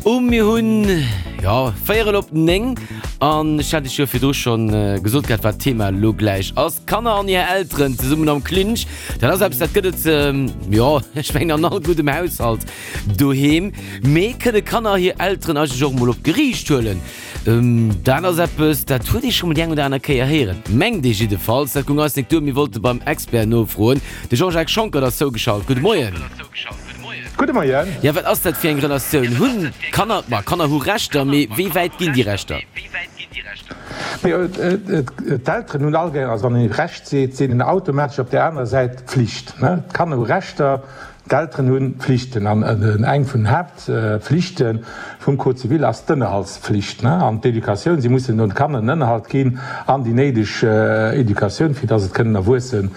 Um. Mir hunn, jo, véierel op 9 an ech hat iech jo virdru schonn gesot gehat, wat d'Thema elo gläich ass. Kanner an hir Elteren zesummen am Clinch. Dat ass eppes, dat gëtt et, jo, ech mengen an all guddem Haushalt doheem. Mee kënne Kanner hir Elteren eigentlech och emol op d'Geriicht huelen? Dat ass eppes, dat huet ee scho mol déi eng oder aner Kéier héieren, mengt ee jiddefalls. Dat goung eis nik duer, mir wollte beim Expert nofroen. De Jean-Jacques Schonckert ass zougeschalt. Gudde Moien. Gudde Moien. Jo, wat ass dat fir eng Relatioun? Hunn Kanner, ma Kanner hu Rechter, mee wéi wäit ginn déi Rechter? D'Elteren hunn allgemeng, also wann een Recht seet, seet een automatesch op där anerer Säit Pflicht. D'Kanner hu Rechter, D'Elteren hu Pflichten an eng vun den Haaptpflichte vum Code civil ass d'Ënnerhaltspflicht an d'Educatioun. Si mussen den Kanner en Ënnerhalt ginn an déi néideg Educatioun, fir dass et kënnen erwuesse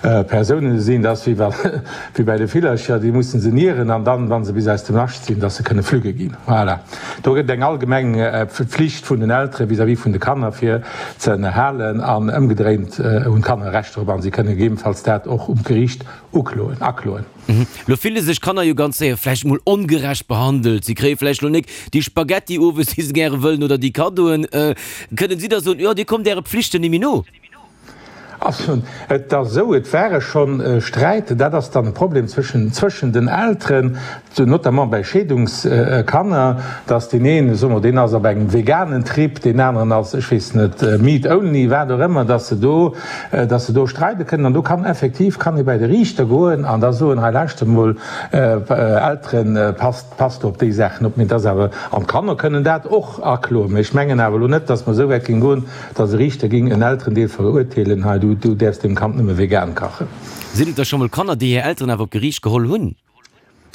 Persounen sinn. Dat ass wéi wéi bäi de Villercher, déi mussen se nieren an dann, wa se bis aus dem Nascht sinn, dass se kënne flügge ginn. Voilà. Do gëtt et eng allgemeng Pflicht vun den Eltere vis-à-vis vun de Kanner, fir ze ënnerhalen an ëmgedréint hunn d'Kanner e Recht drop an si kënne gegebenfalls dat och um Geriicht Ukloen, akloen. Lo fille sech Kanner jo ganz séier vläicht mol ongerecht behandelt. Si kréie vläicht lo nik déi Spaghetti owes, déi se gäre wëllen, oder déi Kaddoen. Kënnen si da soen, Jo, dir kommt äre Pflichten ni méi no? Also, et ass esou, et ware schonn Sträiten, dat ass dann e Problem zwëschen, zwëschen den Elteren, notamment bäi Scheedungskanner, dass deen een, soe mer, deen ass op engem veganen Trip, deen aneren ass, ech weess net, meat only, wat och ëmmer, dass se do, dass se do streide kënnen. An do kann effektiv, kann ee bäi de Riichter goen an da soen, hei lauschtert emol, Elteren, passt, passt op déi Saachen op. Mee et ass awer, an d'Kanner kënnen dat och akloen. Mee ech mengen awer elo net, dass mer esou wäit géing goen, dass e Riichter géing en Elterendeel verurteelen, hei du, du däerfs deem Kand nëmme vegan kachen. Sinn et da scho mol Kanner, déi hir Elteren awer op d'Geriicht geholl hunn?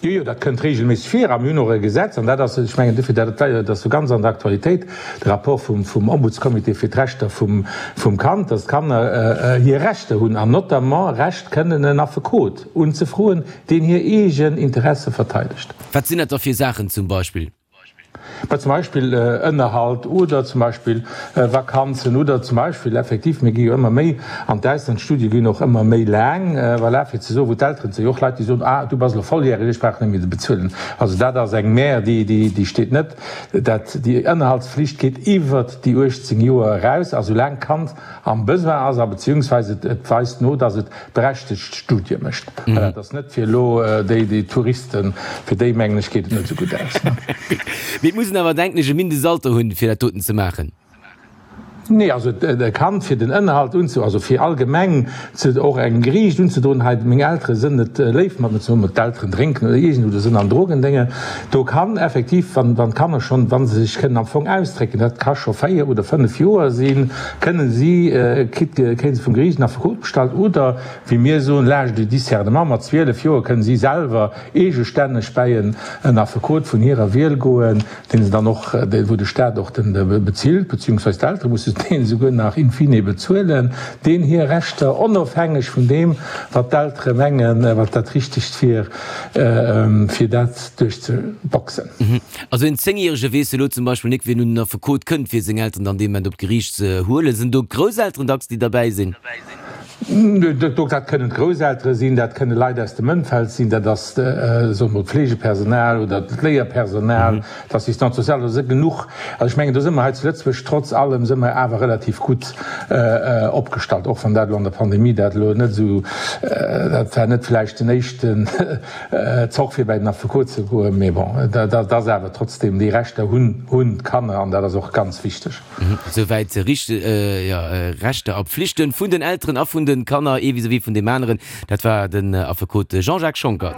Jo, jo, dat kënnt regelméisseg vir a mir hunn och e Gesetz, an dat ass, ech mengen dofir, dat dat ass jo ganz an der Aktualitéit, de Rapport vum vum Ombudscomité fir d'Rechter vum vum Kand, dass d'Kanner hir Rechter hunn an notamment Recht kënnen en Affekot unzefroen, deen hir eegen Interesse verteidegt. Wat sinn dat da fir Saachen zum Beispill? Mä zum Beispill Ënnerhalt oder zum Beispill Vakanzen oder zum Beispill effektiv, mir gi jo ëmmer méi an d'Ausland, d'Studie ginn och ëmmer méi laang, voilà, fir ze soen, wou d'Elteren, et si jo och Leit, déi soen, ah, du bass elo volljäreg, ech brauch net méi ze bezuelen. Also dat ass eng Mär, déi, déi, déi steet net. Dat, déi Ënnerhaltsflicht geet iwwert déi 18 Joer eraus a soulaang d'Kand am Besoin ass a beziehungsweise et weist no, dass et berechtegt Studie mécht. Voilà, dat ass net fir elo déi, déi Touristen, fir déi mengen ech geet et net esou gutt aus. Mee et muss een awer, denken ech, e Mindestalter hunn, fir dat doten ze maachen. Nee, also e Kand fir den Ënnerhalt unze, also fir allgemeng ze och engem Geriicht unzedroen, hei meng Eltere sënn net léif mat mir, soe mer d'Elteren drénken oder iergend oder sënn an Drogendénge, do kann effektiv, wann wann d'Kanner schonn, wa se sech kënnen am Fong ausdrécken, dat ka scho 4 oder 5 Joer sinn, kënnen si, kritt, kréie se vum Geriicht en Affekot bestallt oder, wéi mir soen, l'âge du discernement, mat 12 Joer kënnen si selwer eegestänneg bäi en en Affekot vun hirer Wiel goen, deen se dann och, wou de Staat och den bezilt, beziehungsweise d'Eltere musse deen esouguer nach in fine bezuelen, deen hir Rechter, onofhängeg vun deem, wat d'Eltere mengen, wat dat Richtegt wier, fir dat duerchzeboxen. Also en Zéngjärege weess elo zum Beispill nik, wien un den Affekot kënnt, fir seng Elteren dann dee Moment op d'Geriicht ze huelen. Sinn do d'Grousselteren dacks, déi derbäi sinn? Dat kënnen d'Grousseltere sinn, dat kënne Leit aus dem Ëmfeld sinn, dat ass, soe mer, d'Fleegepersonal oder d'Léierpersonal, d'Assistante sociale, do si genuch. Also ech mengen, do si mer hei zu Lëtzebuerg trotz allem si mer awer relativ gutt opgestallt, och wann dat elo an der Pandemie dat elo net esou, dat war net vläicht den éischten Zoch fir bäi den Affekot ze goen, mee bon, dat ass awer trotzdem, déi Rechter hunn hunn d'Kanner an dat ass och ganz wichteg. Souwäit Rechter a Pflichten vun den Elteren a vun de Kanner, ee vis-à-vis vun deem aneren. Dat war den Affekot Jean-Jacques Schonckert.